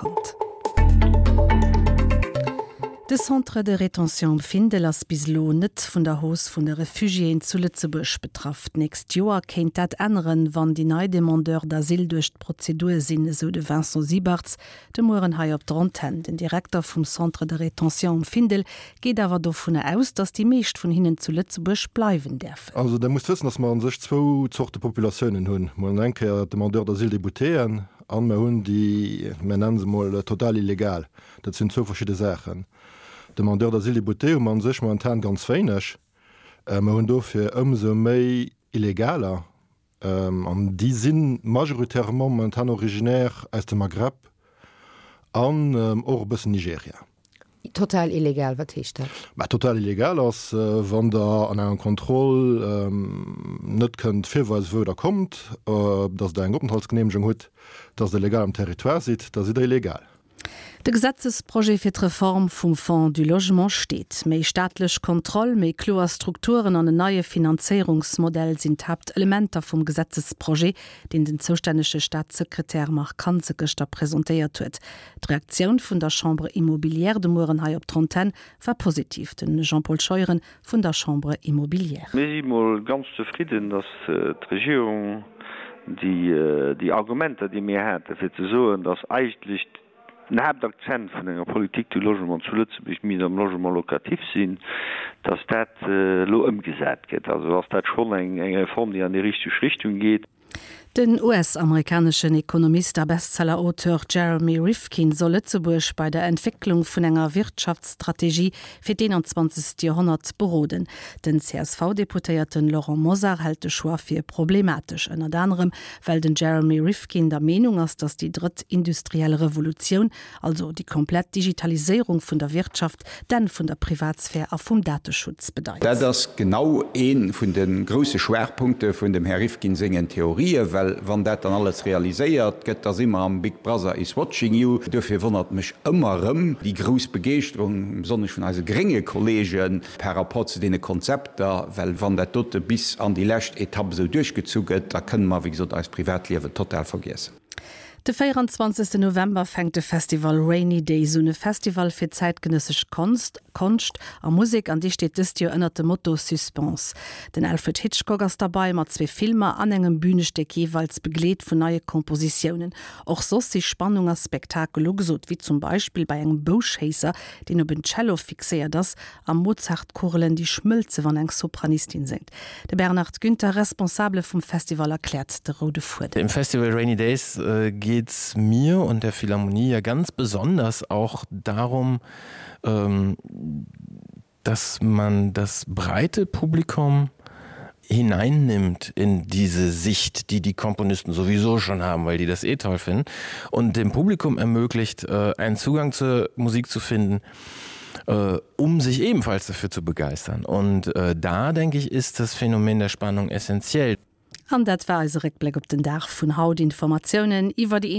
konnt. De Centre de rétention um Findel ass bis elo net vun der Hausse vun de Refugiéen zu Lëtzebuerg betraff. D'nächst Joer kéint dat änneren, wann déi nei Demandeurs d'asile duerch d'Prozedur sinn, esou de Vincent Siebarts de Mueren hei op der Antenn. Den Direkter vum Centre de rétention um Findel geet awer dovunner aus, datt déi meescht vun hinnen zu Lëtzebuerg bleiwen däerfen. Also Der musst wëssen, datt mer a sech zwou Zorte Populatiounen hunn. Mol eng Kéier d'Demandeurs d'asile déboutéen an mer hunn déi, mer nennen se mol total illegal. Dat sinn zwou verschidde Saachen. Demandeurs d'asile déboutés hu mer a sech momentan ganz wéineg. Mer hunn dofir ëmsou méi Illegaler, an déi si majoritairement momentan originaire aus dem Maghreb an och e bëssen Nigeria. Total illegal, wat heescht dat? Mä total illegal ass, wann Der an enger Kontroll net kënnt virweisen, wou Der kommt, datt Der eng Openthaltsgeneemegung hutt, datt Der legal am Territoire sidd, da sidd Der illegal. De Gesetzesprojet fir d'Reform vum Fonds du Logement steet. Méi staatlech Kontroll, méi kloer Strukturen an en neie Finanzéierungsmodell sinn d'Haaptelementer vum Gesetzesprojet, deen den zoustännege Staatssekretär Marc Hansen gëschter presentéiert huet. D'Reaktioun vun der Chambre immobilière de Mueren hei op d'Antenn war positiv. De Jean-Paul Scheuren vun der Chambre immobilière. Mir si mol ganz zefridden, dass d'Regierung déi Argumenter, déi mir haten, fir ze soen, dass eigentlech den Haaptakzent vun enger Politique du logement zu Lëtzebuerg misst am Logement locatif sinn, dass dat elo ëmgesat gëtt. Also ass dat schonn eng Reform, déi an déi richteg Richtung geet. Den US-amerikaneschen Ekonomist a Bestseller-Auteur Jeremy Rifkin soll Lëtzebuerg bei der Entwécklung vun enger Wirtschaftsstrategie fir d'21. Joerhonnert beroden. Den CSV-Deputéierten Laurent Mosar hält de Choix fir problematesch, ënnert anerem well den Jeremy Rifkin der Meenung ass, datt déi drëtt industriell Revolutioun Also déi komplett Digitaliséierung vun der Wirtschaft, d'Enn vun der Privatsphär a vum Dateschutz bedeit. Dat ass genau ee vun de grousse Schwaachpunkte vun dem Här Rifkin sengen Theorien, well wann dat dann alles realiséiert gëtt, da si mer am Big Brother is watching you. Duerfir wonnert mech ëmmer erëm déi grouss Begeeschterung, besonnesch vun eise grénge Kollegen, par rapport zu deene Konzepter, well wann dat dote bis an déi lescht Etapp esou duerchgezu gëtt, da kënne mer, wéi gesot, eist Privatliewen total vergiessen. De 24 November fänkt de Festival Rainy Days un, e Festival fir zäitgenëssesch Konst, Konscht a Musek an dee steet dëst Joer ënnert dem Motto Suspense. Den Alfred Hitchcock ass derbei mat zwee Filmer an engem Bünestéck, jeeweils begleet vun neie Kompositiounen. Och soss si Spannung a Spektakel ugesot, wéi zum Beispill bei engem Bouschéisser, deen op en Cello fixéiert ass a Mozart-Kugelen, déi schmëlze wann eng Sopranistin séngt. De Bernhard Günther, Responsabele vum Festival, erkläert de roude Fuedem. Im Festival Rainy Days geht's mir und der Philharmonie ja ganz besonders auch darum, dass man das breite Publikum hineinnimmt in diese Sicht, die die Komponisten sowieso schon haben, weil die das eh toll finden und dem Publikum ermöglicht, einen Zugang zur Musik zu finden, um sich ebenfalls dafür zu begeistern. Und da denke ich, ist das Phänomen der Spannung essentiell. An dat war eise Réckbléck op den Dag vun haut. Informatiounen iwwer déi.